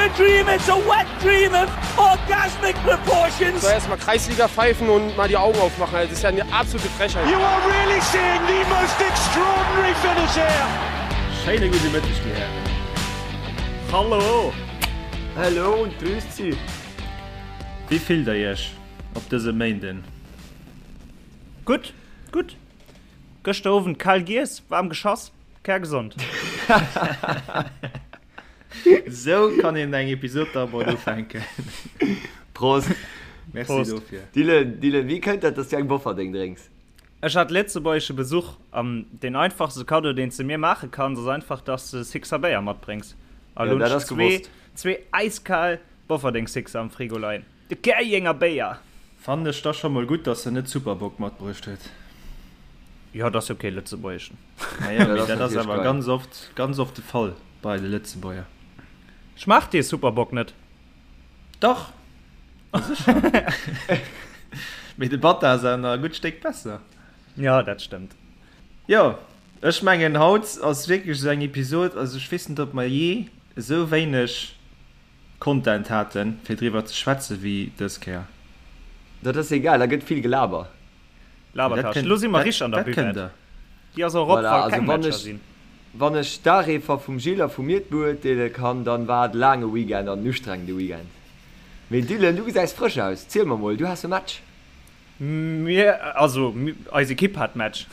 a dream, it's a wet dream of orgasmic proportions. So erstmal Kreisliga pfeifen und mal die Augen aufmachen. Das ist ja eine absolute Frechheit. You are really seeing the most extraordinary finish here. Schéine gudde Mëtteg, dir Hären. Hallo! Hallo und grüßt Sie. Wéi fillt der iech op dësem Méinden? Gutt, gutt. Gëschter Owend kal giess, waarm geschass, kärgesond. Esou kann een eng Episod da mol ufänken. Prost. Merci Prost. dofir. Dylan, Dylan, wéi kënnt dat, dass du eng Bofferdeng drénks? Ech hat lëtzebuergesche Besuch an deen einfachste Kaddo, deen s de mir maache kanns, ass einfach, dass de Sixer Béier matbréngs. A Ja, lo hunn dat ech ass gewosst. zwee äiskal Bofferdeng Sixer am Frigo leien. De Käerjenger Béier! Fannen ech da scho mol gutt, dass en net Superbock matbruecht huet. Jo, dat ass jo kee lëtzebuergeschen. Naja, Ja, mee dat ass dat ass natierlech awer geil. ganz oft, ganz oft de Fall bei de Lëtzebuerger. Schmaacht dee Superbock net? Dach, ma sécher. Mee de Batta ass awer nach e gutt Stéck besser. Jo, dat stëmmt. Jo, ech mengen haut ass wierklech esou eng Episod, also ech weess net ob mer jee esou wéineg Content haten fir driwwer ze schwätzen wéi dës Kéier. Dat ass egal, da gëtt vill gelaber. Labertasch, lo si mer richteg an der Buvette. Déi ass och erop, Voilà, wa also keng wann Matcher ech, sinn. wann ech d'Areefer vum Gilles a vu mir beurteele kann, dann war et e laange Weekend an en ustrengende Weekend. Mee Dylan, du gesäis frësch aus, ziel mer mol, du has e Match. Mir, also eis Ekipp hat Match.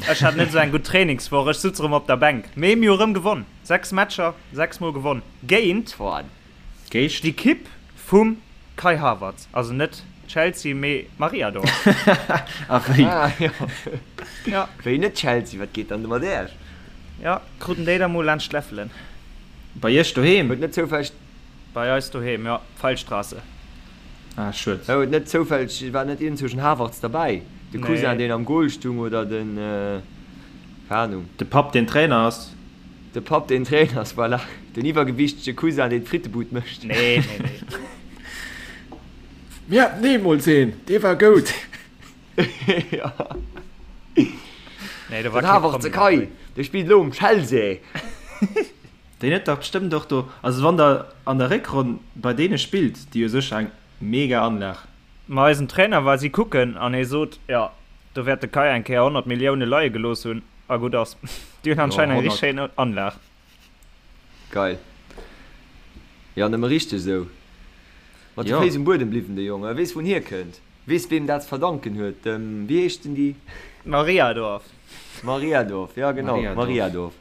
Ech hat net esou eng gutt Trainingswoch, ech sutz erëm op der Bänk. Mee mir hu rëm gewonn, 6 Matcher, 6 mol gewonn géint d'Ekipp vum Kai Havertz. Also net Chelsea, mee Mariadorf. A wéi? Ah jo. Ja. Wéi net Chelsea, wat geet dann do mat Äech? Ja, kruten déi da mol laanscht d'Läffelen. Bei iech doheem? Huet net zoufälleg. Bei eis doheem, jo, Pfeilstraße. Ah, schued. Huet net zoufälleg, war net iergendzwousch en Havertz derbäi? De Cousin, Nee. deen am Goal stung, oder den, keng Ahnung. De Papp, deen Trainer ass. De Papp, deen Trainer ass, voilà. Den iwwergewiichtege Cousin, deen d'Frittebud mécht. Nee, nee, nee. Mir haten eemools een, dee war goud. Jo. Nee, do war Den kee Havertz, Promi Kai, derbäi. dee spillt elo um Chelsea. Deen huet dach bestëmmt och do, also wann der an der Réckronn bei deene spillt, déi hu sécher eng mega Anlag. Ma eisen Trainer war si kucken an hie sot, jo, do wäert de Kai eng Kéier 100 Millioune leie gelooss hunn a gutt ass. Déi hunn Jo, anscheinend eng 100. richteg schéin Anlag. Geil. Jo, nëmme richteg esou. Mat de Jo. Féiss um Buedem bliwwen, de Jong. E weess, wou en hierkënnt. Weess, weem dat ze verdanken huet. Dem, wéi heescht den déi? Mariadorf. Mariadorf, jo genau, Mariadorf. Mariadorf.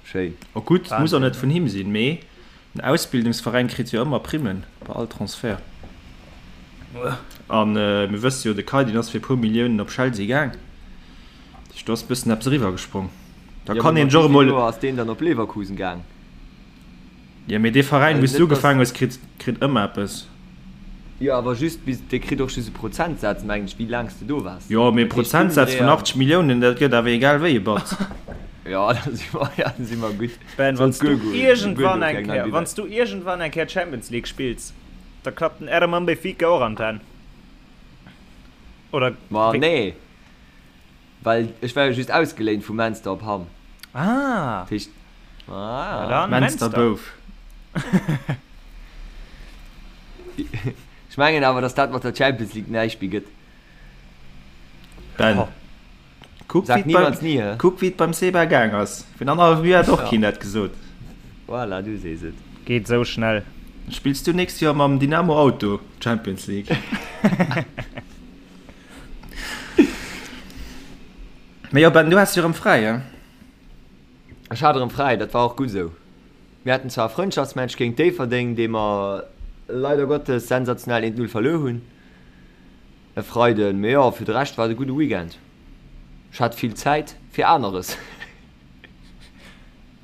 Schéin. Oh gutt, muss och net vun him sinn, mee den Ausbildungsveräin kritt jo ëmmer Primmen bei all Transfert. An mir wësse jo, de Kai deen ass fir e puer Milliounen op Chelsea gaang, dat heescht do ass e bëssen eppes eriwwer gesprong. Da Jo, kann mee een mat sech och wéi vill emol. Joer ass deen dann op Leverkusen gaang? Jo, mee dee Veräin, Also wou s du net, dass. ugefaangen hues, kritt kritt ëmmer eppes. Jo, awer just bis, dee kritt och just e Prozentsaz, mengen ech, wéi laang s de do waars. Jo, mee e Dat heescht, Prozentsaz vun Dummendréier. 80 Milliounen, dat gëtt awer egal wéi e Batz. Jo, da si mer, ja, da si mer gutt. Ben, wann Sollt s du guer goen, guer iergendwann goen fir eng eng nei Kéier, Buvette. wann s du iergendwann eng Kéier Champions League spills, da klappt den Erman Benfica och an d'Hänn. Oder Ma wéi? nee, well ech war jo just ausgeléint vu Menster op Hamm. Ah! Dat heescht, Na ah. dann, Menster Menster. Bouf. Ech mengen awer, dass dat mat der Champions League näischt méi gëtt. Ben, kuck Sag wéi et beim, niemals nie, hä? kuck wéi et beim Seba gaang ass. Virun annerhallwem Joer hat och Ja. keen dat gesot. Voilà, du sees et. Geet sou schnell. Spills du nächst Joer mam Dynamo Auto Champions League? Mee jo Ben, du has jo erëm fräi, he? Ech hat erëm fräi, dat war och gutt esou. Mir haten zwar e Frëndschaftsmatch géint Déifferdeng, dee mer leider Gottes sensationell 1, 0 verluer hunn e Freiden, mee jo, fir de Rescht war et e gudde Weekend. Ech hat vill Zäit fir aneres.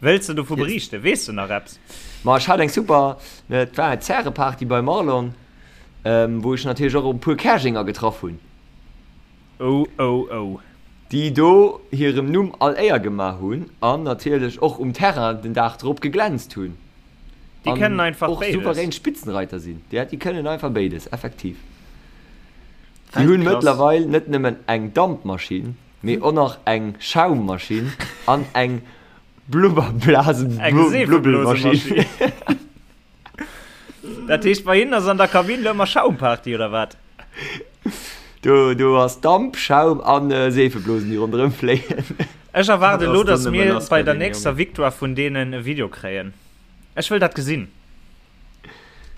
Wëlls de dovu beriichten? Weess de nach eppes? Ma ech hat eng super, et war eng Zäreparty beim Marlon, wou ech natierlech och e puer Käerjenger getraff hunn. Oh oh oh. Déi do hirem Numm all Éier gemaach hunn an natierlech och um Terrain den Dag drop geglänzt hunn. Déi kënnen einfach och béides. Souverän Spitzenreiter sinn. Ja, déi kënnen einfach béides, effektiv. Déi hunn Weltklass. mëttlerweil net nëmmen eng Dampmaschinn, mee och nach eng Schaummaschinn an eng Eng Blubberblasen-Blubbelmaschinn. Seefebloosemaschinn. Dat heescht, bei hinnen ass an der Kabinn lo ëmmer Schaumparty, oder wat? Do, do ass Damp, Schaum an Seefeblosen, déi ronderëm fléien. Ech erwaarde lo, dass mir bei der nächster Victoire vun deenen e Video kréien. Ech wëll dat gesinn.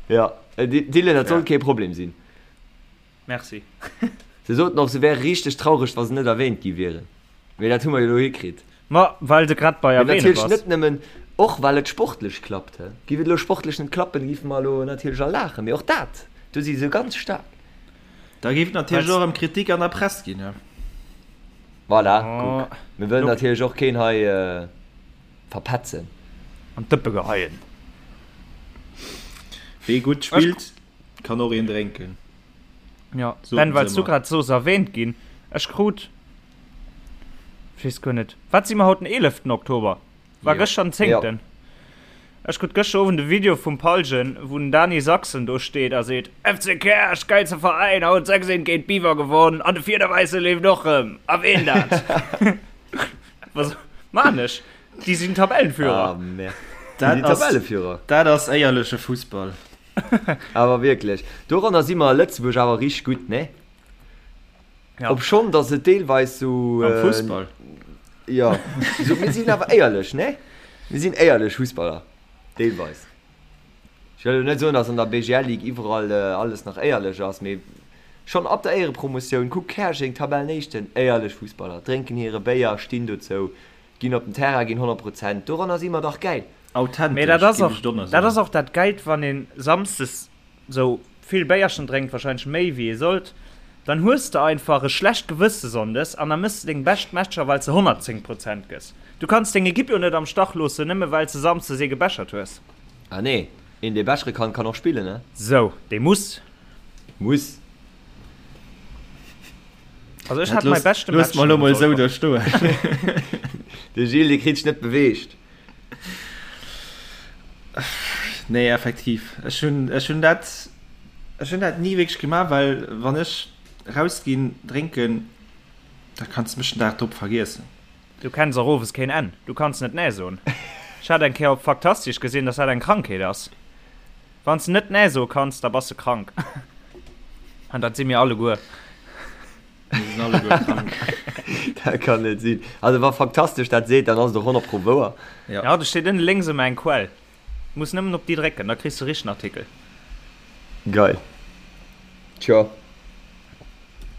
Ja, Dylan, dat sollt kee Problem sinn. Merci. Se soten och, se wäre richteg traureg, wa se net erwähnt gi wieren. Mee dat hu mer jo elo hikritt. Ma well de grad bei Mee erwähne natierlech bass. net nëmmen, och well et sportlech klappt. He. Giff et elo sportlech net klappen, giffe mer elo natierlech all laachen. Mee och dat, do si se ganz staark. Da géif et natierlech och erëm Kritik an der Press ginn. He. Voilà, kuck. Mir wëllen natierlech och keen hei verpetzen. An d'Dëppe geheien. Wee gutt spillt, kann och een drénken. Ja, Ben, well s du grad soos erwähnt ginn, ech krut, ech weess guer net, wat si mer haut, den eeleften Oktober? War jo. gëschter den zéngten? Jo. Ech krut gëschter Owend e Video vum Paljen, wou den Dany Sachsen do steet a seet, FC Käerch, geilste Veräin, haut 6, 1 géint Biwer gewonn an de Fiederwäisse leeft och rëm. Erwähn dat! Was maan ech? Déi sinn Tabellenführer. Ah, merde. Déi sinn Tabelleführer. Dat ass éierleche Fussball. Awer wierklech, doranner si mer a Lëtzebuerg awer richteg gutt, ne? Ja. Obschonn datt et deelweis sou. Am Fussball? Jo, sou, mir sinn awer éierlech, ne? Mir sinn éierlech Fussballer, deelweis. Ech wëll elo net soen, datt an der BGL-Ligue iwwerall alles nach éierlech ass, mee schonn ab der Éierepromotioun, kuck Käerjeng, Tabellenéischten, éierlech Fussballer, drénken hire Béier, stinn dozou, ginn op den Terrain, ginn 100 Prozent. Doranner si mer dach gäil. Authentesch, Mee dat ass géif och, ech donner dat soen. ass och dat Gäilt, wann een Samsdes sou vill Béierchen drénkt, wahrscheinlech méi wéi ee sollt, dann hues de einfach e schlecht Gewësse Sonndes an da mëss de deng bescht Matcher, well s de 110 Prozent gëss. Du kanns deng Ekipp jo net am Stach loossen, nëmme well s de Samsdes ee gebechert hues. Ah nee, een dee bechere kann, kann och spillen, ne? Sou, dee muss. Muss. Also ech hat mäi beschte Match. Looss mer elo mol sou do stoen. De Gilles, dee kritt sech net beweegt. Nee, effektiv. Ech hunn, ech hunn dat, ech hunn dat ni wierklech gemaach, well wann ech rausginn drénken, da kanns de mech den Dag drop vergiessen. Du kenns och owes keen Enn. Du kanns net Nee soen. Ech hat eng Kéier op Faktastisch gesinn, dass dat eng Krankheet ass. Wann s de net Nee soe kanns, da bass de krank. An dat si mir alleguer. Mir sinn alleguer krank. Dat kann net sinn. Also wa Faktastesch dat seet, dann ass et och 100 pro wouer. Ja. Ja, do steet ënne lénks ëmmer eng Quell. Muss nëmmen op déi drécken, da kriss de richtegen Artikel. Geil. Tjo.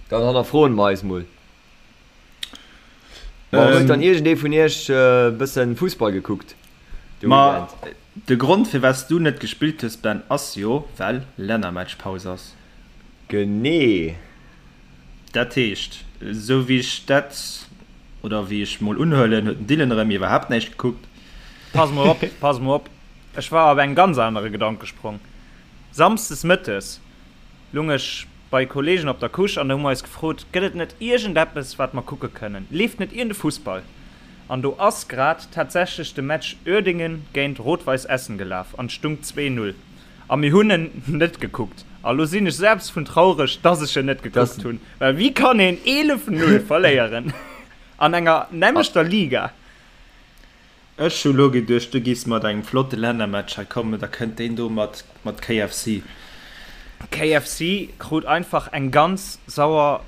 Dann hannerfroen mer eis mol. Ma huet dann iergendee vun iech e bëssen Fussball gekuckt de Ma Weekend? de Grond firwat s du net gespillt hues Ben ass jo well Lännermatchpaus ass. Genee. Dat heescht, esou wéi ech dat, oder wéi ech mol unhuelen, huet den Dylan erëm iwwerhaapt näischt gekuckt. Pass mol op, pass mol op, ech war op eng ganz anere Gedankesprong. Samsdes mëttes lung ech bei Kollegen op der Couche an da hu mer eis gefrot, gëtt et net iergendeppes wat mer kucke kënnen, leeft net iergende Fussball? An do ass grad tatsächlech de Match Uerdingen géint Rot-Weiss Essen gelaf an et stung 2, 0 a mir hunn en net gekuckt. A lo sinn ech selbst vun traureg, dass ech en net gekuckt hunn, well wéi kann een 11, 0 verléieren an enger nämmlechter Liga? Ech hu lo geduecht du giffs mat engem flotte Lännermatch hei kommen, da kënnt deen do mat mat KFC. KFC krut einfach eng ganz sauer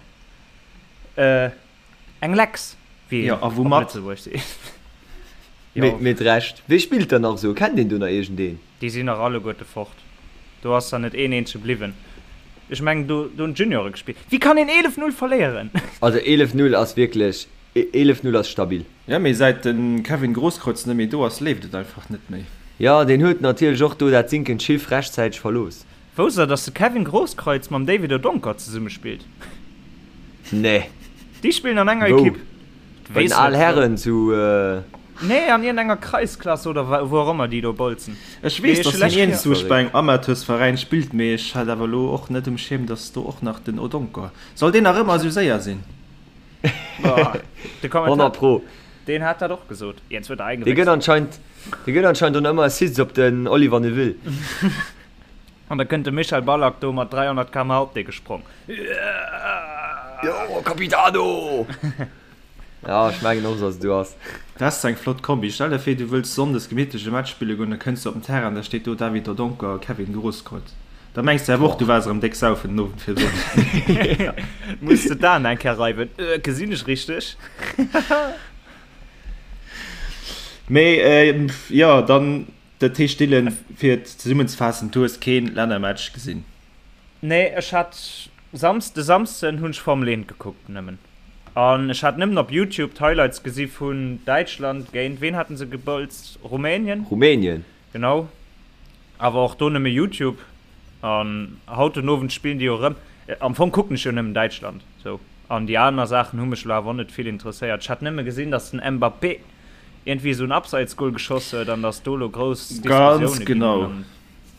eng Lecks, wéi Jo, een a op woumat? Lëtzebuerg seet. Mee Jo. mit Recht. Wee spillt dann nach esou? Kennt een do nach iergendeen? Déi sinn nach alleguerte fort. Do ass der net een eenzege bliwwen. Ech mengen do do hunn d'Juniore gespillt. Wéi kann een 11, 0 verléieren? Also 11, 0 ass wierklech, 11, 0 ass stabil. Jo, mee säit de Kevin Grosskreutz net méi do ass, leeft et einfach net méi. Jo, deen huet natierlech och do dat sinkend Schiff rechtzäiteg verlooss. Wousst der, dass de Kevin Grosskreutz mam David Odonkor zesumme spillt? Nee. Déi spillen an enger Wou? Ekipp. Bei den Al Herren zu. Nee, an iergendenger Kreisklasse oder wou och ëmmer déi do bolzen. Ech weess, dass hien iergendzwousch bei engem Amateursveräin spillt, mee ech hat awer elo och net um Schierm, dass do och nach den Odonkor. Soll deen nach ëmmer esou séier sinn? De 100 pro. Deen hat dat och gesot. Jens huet der Dee gëtt anscheinend, dee gëtt anscheinend och nach ëmmer Assists op den Oliver Neuville. An da kënnt de Michel Ballack do mat 300 km/h op dee gesprong. Jo, Capitano! Ja, ech mengen och, dass et esou ass. Dat ass eng flott Kombi. Stell der vir, du wëlls sonndes gemittlech e Match spille goen, da kënns du op den Terrain, da steet do David Dodonkor a Kevin Grosskreutz. Da mengs de awer och, du waars erëm déck saufen den Owend virdrun. Muss de d'Aen eng Kéier reiwen. Gesinn ech richteg? Mee jo, dann, dat heescht Dylan, fir et zesummenzefaassen, du hues kee Lännermatch gesinn? Nee, ech hat Samsden, de Samsden hunn ech Formel 1 gekuckt nëmmen. An ech hat nëmmen op Youtube d'Highlights gesi vun Däitschland géint, ween haten se gebolzt? Rumänien? Rumänien. Genau. Awer och do nëmme Youtube. An haut den Owend spillen déi jo erëm. Am Fong kucken ech jo nëmmen Däitschland sou. An déi aner Saachen hu mech elo awer och net vill interesséiert. Ech hat nëmme gesinn, datt den Mbappé iergendwéi esou en Abseitsgol geschoss huet an datt do elo grouss Ganz Diskussioune ginn genau. an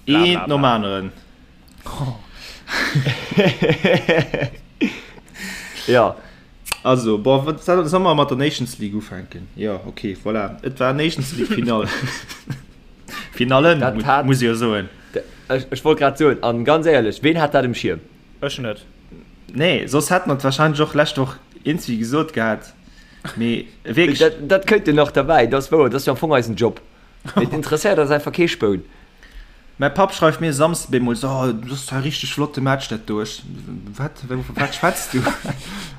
bla bla Eent nom bla. aneren. Jo. Also, bon, wat, solle mer mat der Nations League ufänken? Jo, okay, voilà. Et war Nations League Finall. Finallen, Dat hat- muss ich jo soen. Ech, ech wollt grad soen, an ganz éierlech, ween hat dat um Schierm? Ech net. Nee, soss hätt mer et wahrscheinlech och lescht Woch iergendwéi gesot gehat. Mee wierklech. Dat, dat kënnt jo nach derbäi, dat ass wouer, dat ass jo am Fong eisen Job. Mee et interesséiert eis einfach kee Spoun. Mäi Papp schreift mir e Samsde bemol, Oh, dat ass zwar e richteg flotte Match dat do. Ech, Wat? Vu wat schwätz du?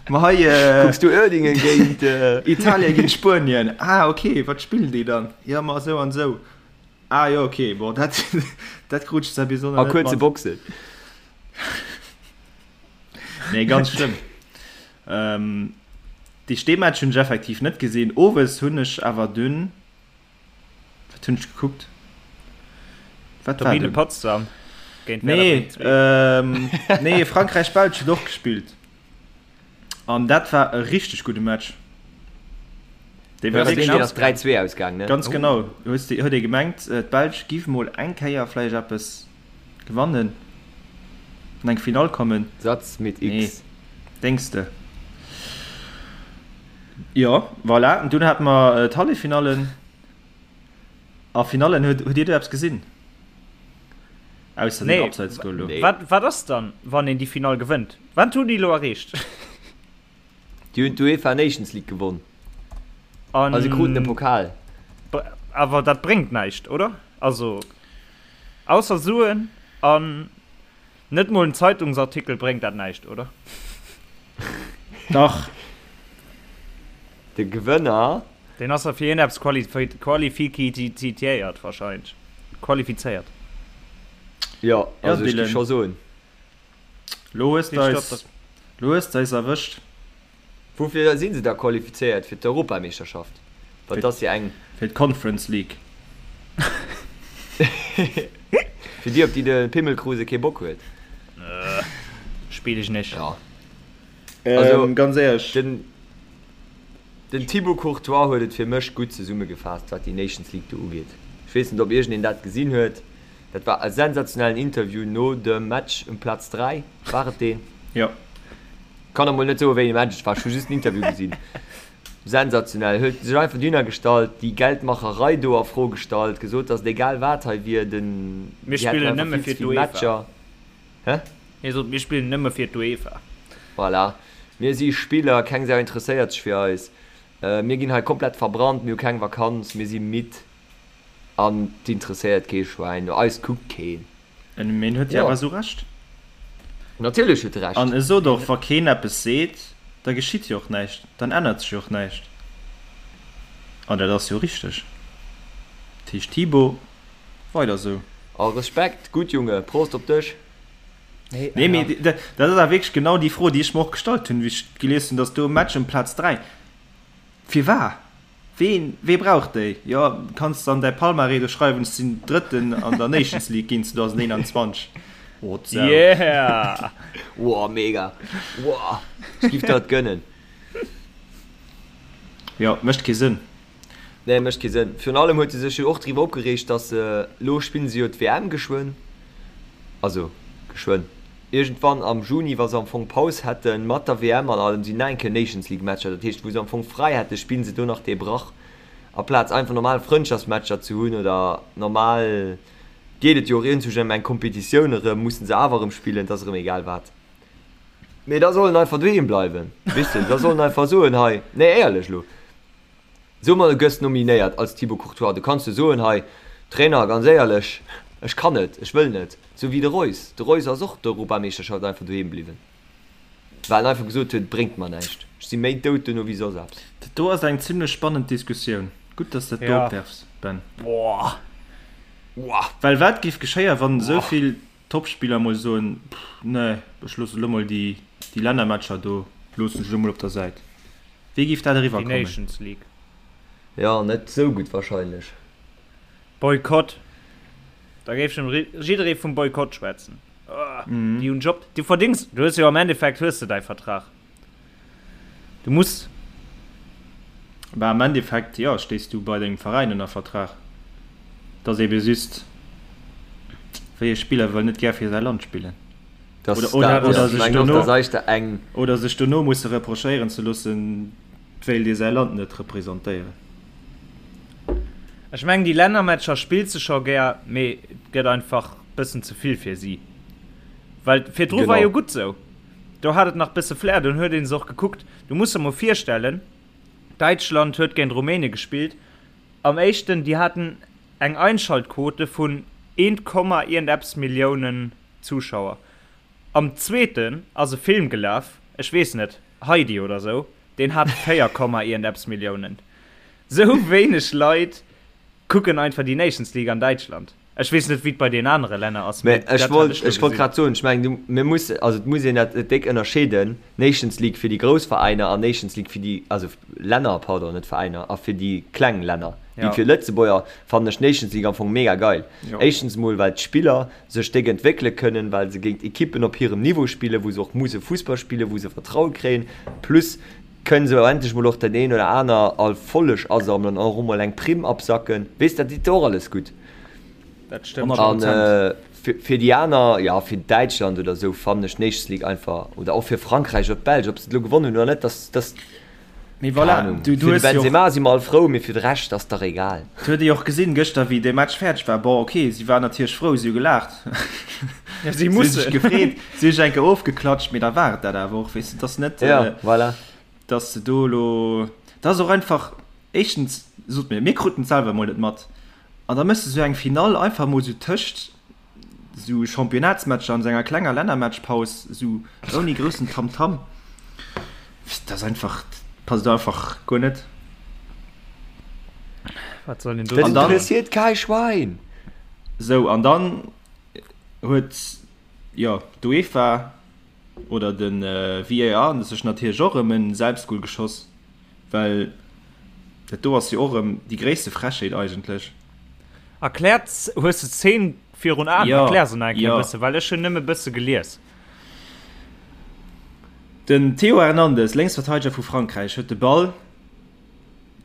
Ma hei. Kucks du Uerdingen géint. Italien géint Spuenien. Ah, okay, wat spillen déi dann? Jo, ma esou an esou. Ah jo, okay, bon, dat, dat krut ech zwar bis elo nach net mat. A kuerze Boxen. Nee, ganz schlëmm. Ähm, déi Steematch hunn ech effektiv net gesinn. Owes hunn ech awer dunn. Wat hunn ech gekuckt? Wat war Turbine Potsdam géint Werder Nee, Bremen 2. ähm, nee, Frankräich-Belsch huet och gespillt. An dat war e richteg gudde Match. Dee war wierklech ass 3-2 ausgaang, ne? Ganz genau. Hues de, huet ee gemengt, d'Belsch giff mol eng Kéier vläicht eppes gewannen, an eng Finall kommen. Satz mit X. Nee, denks de? Jo, voilà. An dunn hate mer d'Halleffinallen a Finallen. Huet, huet Dir do eppes gesinn? Ausser den Abseitsgoal do. Nee. Wat, wat ass dann, wann een déi Finall gewënnt? Wat hunn déi elo erreecht? Déi hunn d'UEFA Nations League gewonn. An a se kruten e Pokal. Awer dat bréngt näischt, oder? Also, ausser Suen an Net mol en Zeitungsartikel bréngt dat näischt, oder? Dach. De Gewënner. Deen ass da fir iergendeppes qualifikizitiéiert wahrscheinlech. Qualifizéiert. Jo, also ech gi scho soen. Lo hues de eis, lo hues de eis erwëscht. Woufir si se da qualifizéiert? Fir d'Europameeschterschaft? Well et ass jo eng. Fir d'Conference League. Fir déi, op déi de Pimmelkruse kee Bock huet. Spill ech nech. Jo. Also, ganz éierlech. Den, den Thibaut Courtois huet et fir mech gutt zesummegefaasst, wat déi Nations League do ugeet. Ech weess net, ob iergendeen dat gesinn huet. Dat war e sensationellen Interview no dem Match um Plaz 3. War et deen? Jo. Kann der mol net soen wéi ee Match et war, ech hu just den Interview gesinn. Sensationell, huet sech einfach dohinner gestallt, déi Geldmacherei do a Fro gestallt, gesot dass et egal wat hei wier, den Mir déi hätten spillen einfach nëmme vill fir ze vill d'UEFA. Matcher. Hä? Hie sot, mir spillen nëmme fir d'UEFA. Voilà. Mir si Spiller, keng Sau interesséiert sech fir eis. Mir ginn hei komplett verbrannt, mir hu keng Vakanz, mir si midd an 't interesséiert kee Schwäin, no eis kuckt keen. En mee en huet jo awer esou Recht. Natierlech huet e Recht. An e sot och, wa keen eppes seet, da geschitt jo och näischt, dann ännert sech jo och näischt. An dat ass jo richteg. Dat heescht Thibaut, weider esou. A Respekt, gutt Junge, Prost op dech. Nee, mee dat ass awer wierklech genau déi Fro, déi ech mer och gestallt hunn, wéi ech gelies hunn, datt do e Match ëm Plaz 3. Firwat? Ween, wee brauch déi? Jo, kanns de an däi Palmarès do schreiwen, ech sinn Drëtten an der Nations League ginn 2021. Oh, d'Sau. Yeah! Woah, mega! Woah, ech giff der et gönnen. Jo, mécht kee Sënn. Nee, mécht kee Sënn. Virun allem huet e sech jo och driwwer opgereegt, dass se, lo spillen se jo d'WM geschwënn, also geschwënn, Iergendwann am Juni, wa se am Fong Paus hätten, mat der WM an allem, sinn nach eng Kéier Nations League Matcher. Dat heescht, wou se am Fong fräi hätten, spillen se do nach dee Brach, aplaz einfach normal Frëndschaftsmatcher ze hunn oder normal, geet et jo och iergendwou ëm eng Kompetitioun erëm, mussen se awer erëm spillen, et ass erëm egal wat. Mee da soll en einfach doheem bleiwen, weess de, da soll en einfach soen, hei, nee éierlech elo, so mol, du gëss nominéiert als Thibaut Courtois, du kanns jo soen, hei Trainer, ganz éierlech, ech kann net, ech wëll net, sou wéi de Reus. De Reus ass och d'Europameeschterschaft einfach doheem bliwwen, well en einfach gesot huet, et bréngt mer näischt, ech si méi dout duerno wéi soss eppes. Dat do ass eng zimlech spannend Diskussioun. Gutt, dass de dat do opwerfs, Ben. Well wat géif geschéien, wann esou vill Topspiller mol soen, pff, nee, ech loosse lo mol déi, déi Lännermatcher do loossen ech lo mol op der Säit. Wéi géif dat eriwwer Déi kommen? Nations League. Jo, net sou gutt wahrscheinlech. Boykott. Da géif schon jidderee vum Boykott schwätzen. Déi hunn Job, du verdings, du hues jo am Endeffekt hues de däi Vertrag. Du muss. Bah am Endeffekt jo, stéis du bei dengem Veräin ënner Vertrag. Et ass ebe just, wéi e Spiller wëll net gär fir säi Land spillen. Das Oder, oder, dat, oder ja. sech Mengen och, dono, dass eischter eng. oder sech dono musse reprochéieren ze loossen, et wéilt ee säi Land net representéieren. Ech mengen déi Lännermatcher spills de scho gär, mee et gëtt einfach bëssen ze vill fir si. Well virdru war Genau. jo gutt sou. Do hat et nach bësse Flair, dunn huet een se och gekuckt. Du muss der mol virstellen, Däitschland huet géint Rumänien gespillt am éischten, déi haten eng Einschaltquote vun eent Komma iergendeppes Milliounen Zuschauer. Am zweeten ass e Film gelaf, ech weess net, Heidi oder sou, deen hat 4 Komma iergendeppes Milliounen. Sou wéineg Leit kucken einfach déi Nations League an Däitschland. Ech weess net, wéi et bei den anere Länner ass, Mä mee ech dat hat wollt, ech lo ech wollt gesinn. grad soen, ech mengen, du, mir muss, also et muss een dat déck ënnerscheeden, Nations League fir déi grouss Veräiner an Nations League fir déi, also Länner, pardon, net Veräiner, a fir déi kleng Länner. Déi Ja. fir Lëtzebuerger fannen ech d'Nations League am Fong mega geil. Jo. Éischtens emol, well d'Spiller sech déck entwéckele kënnen, well se géint Ekippen op hirem Niveau spillen, wou se och musse Fussball spillen, wou se Vertraue kréien, plus kënnen se endlech mol och den een oder aner Erfolleg asammelen an och emol eng Primm absacken. Weess, dat deet och alles gutt. Dat stëmmt. An fir déi aner, jo, fir Däitschland oder esou fannen ech d'Nations League einfach, oder och fir Frankräich oder d'Belsch, ob se et elo gewonnen hunn oder net, dass, dass, Mee keng voilà, Ahnung. du, du Fir de hues jo och, Benzema si mer all frou, mee fir de Rescht ass dach egal. Et huet ee jo och gesinn gëschter, wéi dee Match fäerdeg war. Bon, ok, si waren natierlech frou, si hu gelaacht, Ja, si si hu mussen. sech gefreet, si hu sech eng Kéier ofgeklatscht, mee da war et dat awer och, weess de. Et ass net, Ja, voilà. dass de do elo, dat ass och einfach, éischtens, sot mir, mir kruten et selwer emol net mat. An da méchs de sou eng Finall einfach mol sou tëscht sou Championnatsmatcher an sou enger klenger Lännermatchpaus, sou ouni groussen Tamtam. Dat ass einfach, passt einfach guer net. Wat soll een do Dat An dann- interesséiert kei Schwein! Sou, an dann huet, jo, d'UEFA oder de VAR sech natierlech och erëm en Selbstgol geschoss. Well dat do ass jo och erëm déi gréisste Frechheet eigentlech. Erkläert, hues de d'Szene virun Aen? Jo, Erklär se nach eng Kéier jo. e bësse, well ech hunn nëmme bësse gelies. Den Théo Hernandez, Lénksverteideger vu Frankräich, huet de Ball,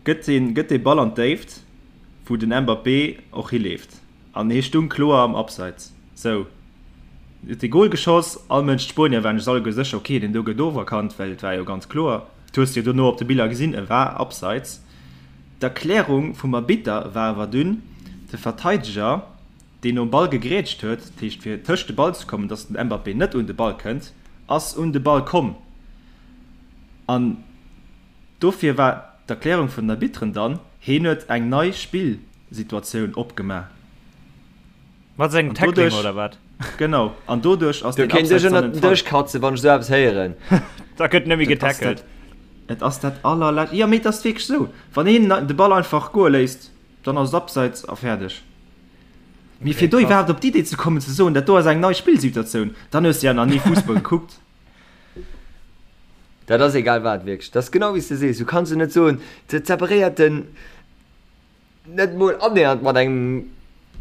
gëtt deen, gëtt dee Ball an d'Déift, wou den Mbappé och hileeft. An hie stung kloer am Abseits. Sou, huet de Gol geschoss. All Mënsch, d'Spuenier waren sech alleguer sécher, ok, deen do gëtt oferkannt, well et war jo ganz kloer. Et hues de jo dono op de Biller gesinn, e war Abseits. D'Erklärung vum Arbitter war awer dunn, de Verteideger, deen nom Ball gegrätscht huet, dat heescht fir tëscht de Ball ze kommen, datt den Mbappé net un de Ball kënnt, ass un de Ball komm. An dofir war d'Erklärung vun den Arbitteren dann, heen huet eng nei Spillsituatioun opgemaach. Mat sengem An Tackling doduerch, oder wat? genau, an doduerch ass Do deen kéint ech Abseits dann ënnert den entfall. Dësch katzen, wann ech esou eppes héieren. Da gëtt net méi Dat ass getackelt. dat, et ass dat allerlescht, jo mee et ass wierklech esou, wann een de Ball einfach goe léisst, dann ass et Abseits a fäerdeg. Mee Okay, fir do krass. iwwerhaapt op d'Idee ze kommen ze soen, dat do ass eng nei Spillsituatioun, dann hues de ja nach ni Fussball gekuckt. Dat ass egal wat, wierklech. Dat ass genau wéi s de sees. Du kanns jo net soen, dat separéiert den net mol annähernd mat engem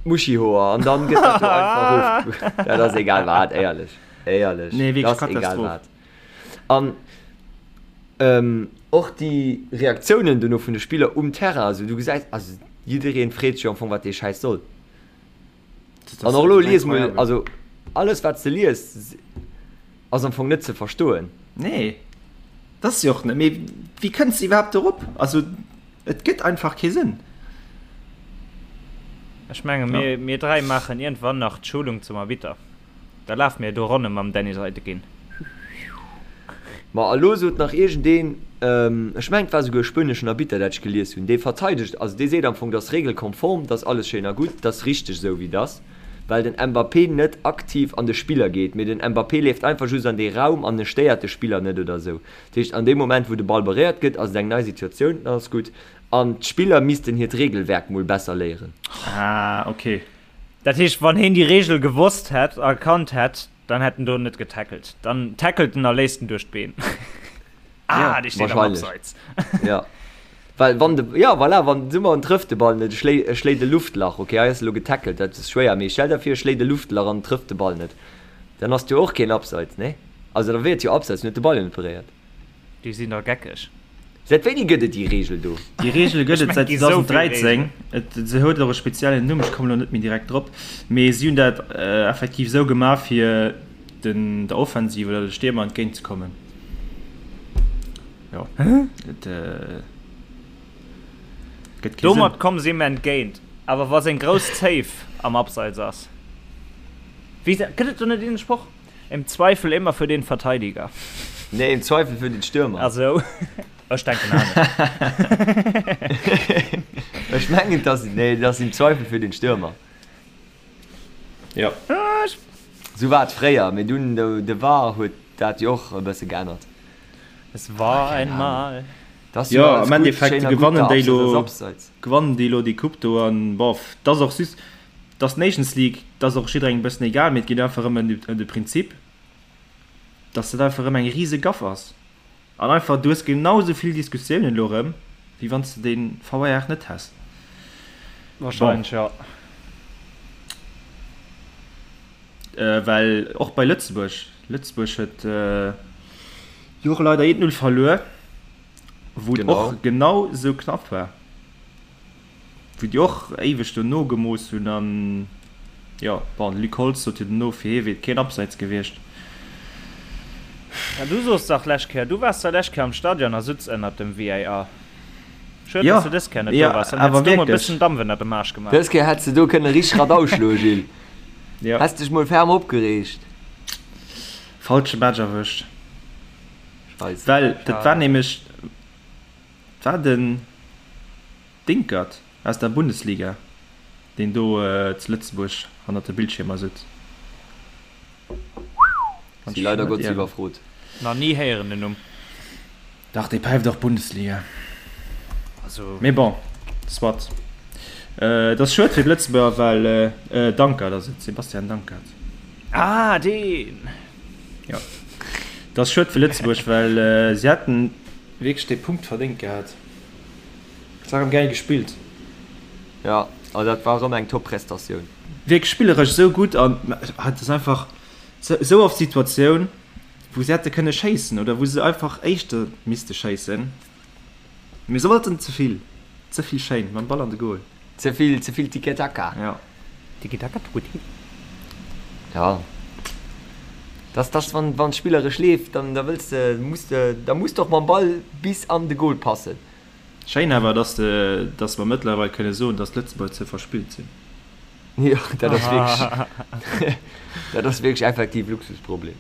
Muschihoer an dann gëtt dat do einfach of. Dat ass egal wat, éierlech. Éierlech. Nee, wierklech Dat ass egal Katastroph. wat. An ähm, och déi Reaktiounen dono vun de Spiller um Terrain, also du gesäis, also jiddereen freet sech jo am Fong, wat dee Schäiss soll. Dat An ass och elo lies mol, incroyable. also alles wat s de lies, ass am Fong net ze verstoen. Nee, dat ass jo och net, mee wéi kënns de iwwerhaapt dorop? Also et gëtt einfach kee Sënn. Ech menge mir, mir 3 maachen iergendwann nach d'Schulung zum Arbitter. Da lafe mir do Ronne mam Dennis Eitekin. Ma a lo sot nach iergendeen, ech mengen et war souguer e spueneschen Arbitter, dat ech gelies hunn, dee verteidegt, also dee seet am Fong, dat ass regelkonform, dat ass alles schéin a gutt, dat ass richteg esou wéi et ass, well den Mbappé net aktiv an de Spiller geet, mee den Mbappé leeft einfach just an dee Raum an e stéiert de Spiller net oder esou. Dat heescht, an deem Moment wou de Ball beréiert gëtt, ass et eng nei Situatioun, dann ass gutt. An d'Spiller missten hiert Regelwerk mol besser léieren. Ah, ok. Dat heescht, wann heen déi Regel gewosst hätt, erkannt hätt, Dann hätt en do net getackelt. Dann tackelt en a léisst en duerch d'Been. Ah, dee steet am Abseits. Ja. Well wann de, ja voilà, wann soe mer en trëfft de Ball net, e schléi, e schléit e Luftlach, okay, hei ass elo getackelt, dat ass schwéier, mee stell der vir e schléit e Luftlach an trëfft de Ball net, dann ass et jo och keen Abseits, nee? Also da wier et jo Abseits, en huet de Ball jo net beréiert. Déi sinn da geckeg. Säit wéini gëtt et déi Reegel do? Déi Reegel gëtt et säit 2013. Et se huet och e speziellen Numm, ech kommen elo net méi direkt drop. Mee si hunn dat effektiv esou gemaach, fir den der Offensiv oder de Stiermer entgéint ze kommen. Jo, et gëtt kee Sënn. Domat komme si him entgéint. Awer wa seng grouss Zéif am Abseits ass, wéi gëtt et do net een Sproch? Im Zweifel immer für den Verteidiger. Nee, im Zweifel für den Stürmer. Ach so. Ech denken anescht. Ech mengen, dass, nee, das im Zweifel für den Stürmer. Ja. Sou war et fréier, mee dunn de, de VAR huet dat jo och e bësse geännert. Es war einmal. Das jo, am Endeffekt gewannen déi lo, gewannen déi lo déi Coupe do an bof, dat ass och just, Dass d'Nations League, dat ass och jidderengem e bëssen egal, mee et geet einfach erëm ëm de Prinzip, dass dat einfach erëm eng rise Gaff ass. An einfach, du hues genau esou vill Diskussiounen elo erëm, wéi wann s de dee VAR net häss. Wahrscheinlech, jo. Well och bei Lëtzebuerg, Lëtzebuerg huet jo och leider 1, 0 verluer, wou et och genau esou knapp war. Wou déi och éiweg do nogemooss hunn an jo, bon, de Luc Holtz sot jo dono, fir hie wier et keen Abseits gewiescht. Ja, du soos dach lescht Kéier, du waars da lescht Kéier am Stadion a sutz ënnert dem VAR. Schued, dass du dës Kéier net do waars, dann hätts du mol e bëssen Dampf ënnert dem Aarsch gemaach. Dës Kéier hätts de do kënne richteg Radau schloen, Gilles. Häss dech mol ferm opgereegt. Falsche Match erwëscht. Well dat war nämlech, war den. Dinkert aus der Bundesliga, deen do zu Lëtzebuerg hannert de Bildschiermer sutz. Si leider Gottes iwwerfrot. Nach ni héieren den Numm. Dach, dee päift och Bundesliga. Also. Mee bon, soit. Et ass schued fir d'Lëtzebuerger, well Dankert ass et, Sebastian Dankert. Ah, deen! Jo. Et ass schued fir Lëtzebuerg, well si hätten wierklech dee Punkt verdéngt gehat. Et war rem gäil gespillt. Jo, also dat war rem eng top Prestatioun. Wierklech spilleresch esou gutt an et ass einfach esou oft Situatioun wou se hätte kënne schéissen oder wou se einfach éischter misste schéissen, mee se wollten ze vill, ze vill schéin mam Ball an de Goal. Ze vill, ze vill Tiki-Taka. Jo. Tiki-Taka, Tutti. Ja. Dass, dass wann, wann spilleresch leeft, dann da wëlls de, muss de, da muss de och mam Ball bis an de Goal passen. Schéin awer, dass de, dass mer mëttlerweil kënne soen, dass d'Lëtzebuerger ze verspillt sinn. Jo, dat ass wierklech, dat ass wierklech effektiv Luxusproblem.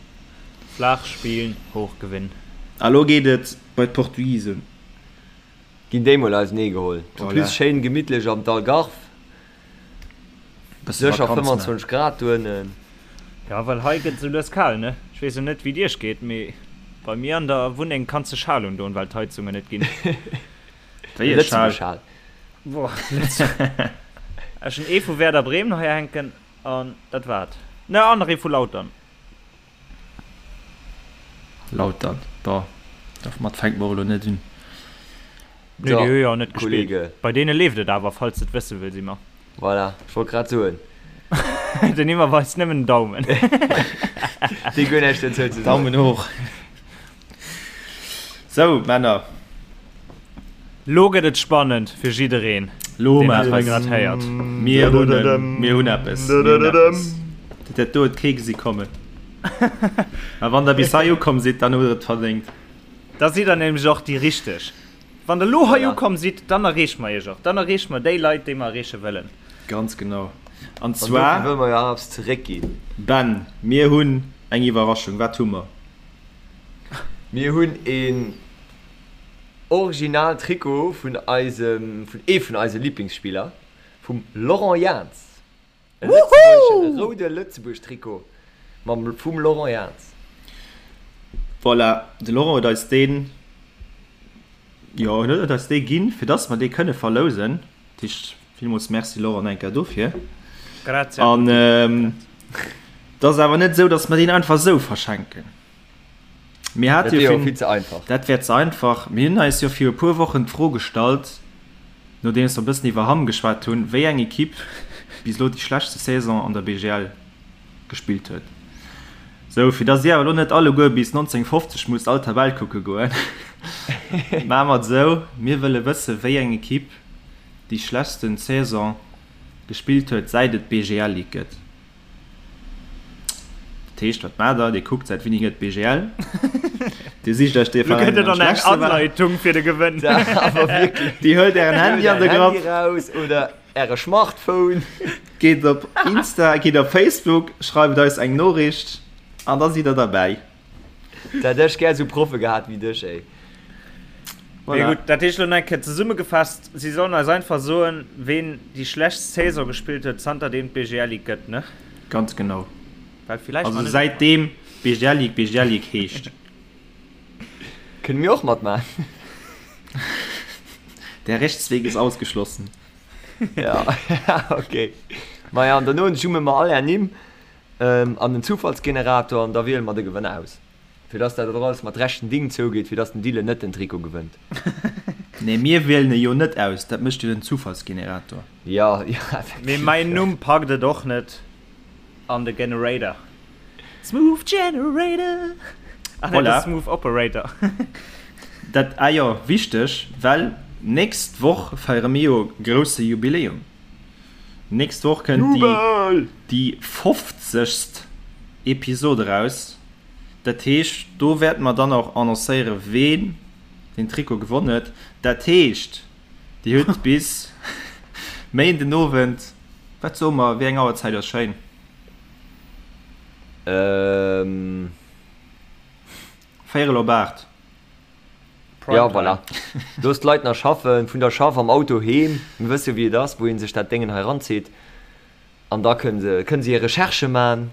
Flaach spillen, hoch gewinnen. A lo geet et bei d'Portugisen. Ginn déi mol ausenee geholl. En plus schéin gemittlech am d'Algarve. Sécher 25 Grad doënnen. Jo, well hei gëtt esou lues kal, ne? Ech weess jo net wéi et iech geet, mee bei mir an der Wunneng kanns de Schal undoen, well d'Heizungen net ginn. Wéi e Schal? Boah, Ech hunn ee vu Werder Bremen hei hänken an dat war et. Ne, an nach ee vu Lautern. Lautern, boah, domat fänke mer elo net un. Nee, déi hu jo net gespillt. Bei deene leeft et awer, falls de et wësse wëlls, Immer. Voilà, ech wollt grad soen. Den Immer weist nëmmen den Daumen. Dee guer näischt dozou ze soen. Daumen hoch. Sou, Männer. Lo gëtt et spannend fir jiddereen, Lo deen dat hei grad héiert. Mir hunn en, mir hunn eppes, mir hunn eppes. Dat do huet kee gesi kommen. A wann der bis hei ukomm sidd, dann hutt der et verdéngt. Da sidd der nämlech och déi Richteg. Wann der lo hei ukomm sidd, dann erreeche mer iech och. Dann erreeche mer déi Leit, déi mer erreeche wëllen. Ganz genau. An zwar. An dofir wëlle mer jo och eppes zeréckginn. Ben, mir hunn eng Iwwerraschung. Wat hu mer? Mir hunn een original Trikot vun eisem, vun ee vun eise Liblingsspiller, vum Laurent Jans. E lëtzebuergeschen, e roude Lëtzebuerg-Trikot mam, vum Laurent Jans. Voilà, de Laurent huet eis deen, jo, en huet eis dee ginn, fir dass mer dee kënne verlousen. Dat heescht, villmools Merci Laurent eng Kéier dofir. Grazie a An tutti. et ass awer net esou, dass mer deen einfach esou verschenken. Mir Dat hate wier jo jo virun, vill ze einfach. dat wär ze einfach. Mir hunn eis jo viru e puer Wochen d'Fro gestallt, nodeems mer e bëssen iwwer Hamm geschwat hunn, wéi eng Ekipp bis elo déi schlechtste Saison an der BGL gespillt huet. Sou, fir dass dir awer elo net alleguer bis 1950 musst all Tabell kucke goen, maache mer et esou, Mir wëlle wësse wéi eng Ekipp déi schlechtsten Saison gespillt huet, säit et d'BGL Ligue gëtt. Dat heescht, wat maacht der? Dir kuckt, säit wéini gëtt d'BGL? Dir sicht iech dee Lo Veräin, gëtt et deen am an eng schlechtste war. Anleitung fir de Gewënn. Awer wierklech. Dir huelt ären Handy Huelt an de ären Grapp. Handy raus oder äre Schmartphone. Geet op Insta, geet op Facebook, schreift eis eng Noriicht an da sidd der derbäi. Da hätt ech gär esou Proffe gehat wéi dech, ey. Mee Voilà. gutt, dat heescht elo nach eng Kéier zesummegefasst, Si sollen eis einfach soen, ween déi schlechtst Saison gespillt huet, zanterdeem d'BGL Ligue gëtt, ne? Ganz genau. Well villäicht Also man net. säitdeem BGL Ligue BGL Ligue heescht. Kënne mir och matmaachen. Der Rechtsweg ist ausgeschlossen. Ja, okay. Maja, an derno jumme mer all är Nimm an den Zufallsgenerator an da wiele mer de Gewënner aus. Fir dass dat och alles mat rechten Ding zougeet, fir dass den Dylan net den Trikot gewënnt. Nee, mir wielen e jo net aus, dat mécht jo den Zufallsgenerator. Jo, jo, effektiv. Mee mäin Numm packt et och net an de Generator. Smooth Generator! Ah nee, de Smooth Operator. Dat, ah jo, wichteg, well nächst Woch feiere mir jo grousse Jubiläum. Nächst Woch kënnt déi, déi fofzegst Episod eraus. Dat heescht, do wäerte mer dann och annoncéieren, ween den Trikot gewonn huet. Dat heescht, Dir hutt bis Méinden Owend, wat soe mer, wéi eng Auerzäit ass schéin? Véierel op 8. Jo, voilà. Looss d'Leit nach schaffen, vun der Schaff am Auto heem. Mir wësse jo, wéi et ass, wou ee sech dat Déngen hei eranzitt. An da kënne se, kënne se hir Recherchë man.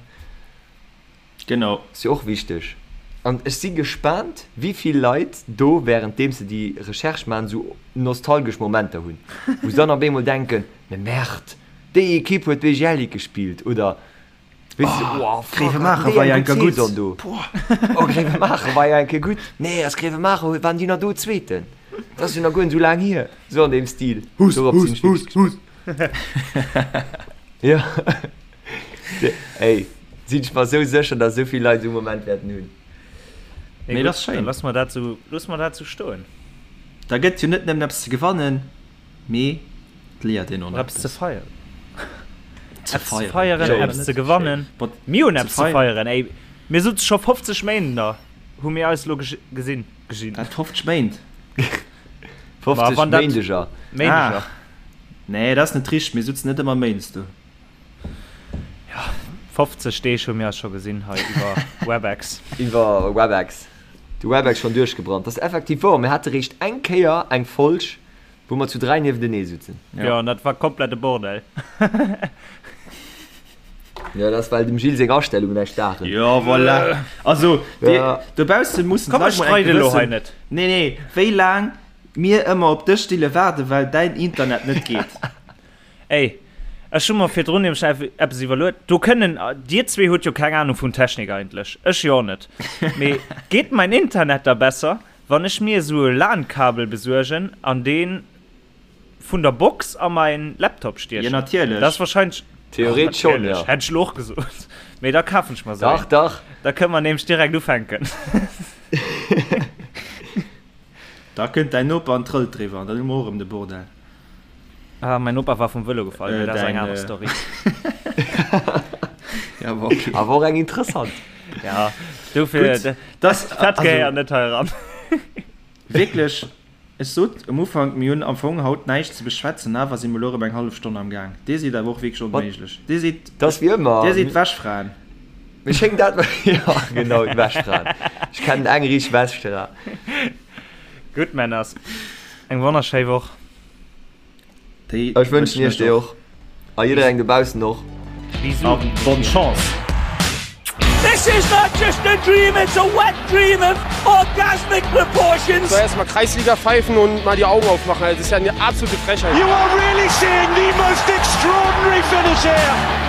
Genau. Ass jo och wichteg. An ech si gespaant, wéi vill Leit do, wärenddeem se déi Recherche man, esou nostalgesch Momenter hunn, wou se dann op eemol denken, Mais merde, déi Ekipp huet BGL Ligue gespillt oder weess de, oh fuck, Gréiwemaacher haten déi war jo eng eng gutt Kéier gutt. Saison do. Oh, Gréiwemaacher war jo eng Kéier gutt. Nee, ass Gréiwemaacher, waren déi nach do Zweeten? Dat ass jo nach guer net esou laang hier. Esou an deem Stil. Hus, Dorop sinn hus, ech hus, wierklech hus. Jo. Ey, sinn ech mer esou sécher, dass esou vill Leit esou e Moment wäerten hunn. Mee Mee gutt, dat ass da schéin. loosse mer dat esou, loosse mer dat esou stoen. Da gëtt jo net nëmmen eppes ze gewannen, mee et léiert een och Och nach eppes ze eppes. feieren. Ze Eppes ze feieren. feieren, Jo, eppes ze gewannen. Bot, Mir hunn ze eppes ze feieren. feieren, ey. Mir sutze scho 50 Méint da hu mir eis elo gesinn. Gesinn. Wat, 50 Méint? 50 wann dat- Méindeger. Méindeger. Ah. Nee, dat ass net richteg, mir sutzen net ëmmer méindes do. 50 Deeg hu mir eis scho gesinn hei iwwer Webex. Iwwer Webex. De Webex schonn duerchgebrannt. Dat ass effektiv wouer. Mir hate réischt eng Kéier eng Folg, wou mer zu 3 niewentenee sutzen. Jo, an dat war komplett e Bordell. Jo, dat ass well dem Gilles seng Astellungen näischt daachen. Jo, voilà. Also, Ja. dobausse mussen Komm, ech d'Leit mol eng streide elo hei gewëssen. net. Nee, nee, wéi laang mir ëmmer op dech stille waarden, well däin Internet net geet. Ey, ech hu mer virdrun nämlech eppes iwwerluet. Do kënnen, dir zwee hutt jo keng Ahnung vun Technik eigentlech, ech jo och net. Mee geet mäin Internet da besser, wann ech mir esou e LAN-Kabel besuergen an dee vun der Box a mäin Laptop Jo, stiechen? natierlech. Dat ass wahrscheinlech. Theoretesch schonn, Natierlech, jo. hätt ech elo och gesot. Mee da kafen ech mer esou Dach, een. dach. Da kënne mer nämlech direkt ufänken. Da kënnt däin Noper an trëllt driwwer an dann hu mer och erëm de Bordell. Ah, mäin Noper war vum Vëlo gefall, mee Äh, dat ass eng däin, aner äh, Story. Ja, awer okay. Awer och eng interessant. Ja, dofir, Gutt, dat das, dat also, gehéiert net hei eran. wierklech, ech sot um Ufank, mir hunn am Fong haut näischt ze beschwätzen, awer si mer elo erëm eng hallef Stonn am Gaang. Dir sidd awer och wierklech Mat, onméiglech. Dir sidd, dat ass wéi ëmmer. dir sidd Wäschfraen. Mir schéngt dat, jo, genau, d'Wäschfraen. Ech kennen eng riicht Weschtera. Gutt Männers, eng wonnerschéi Woch. Déi Ech wënschen iech déi och. A jidderengem dobaussen och. Bisous. A bonne chance. This is not just a dream, it's a wet dream of orgasmic proportions. So erstmal Kreisliga pfeifen und mal die Augen aufmachen. Also, das ist ja eine absolute Frechheit. You are really seeing the most extraordinary finish here.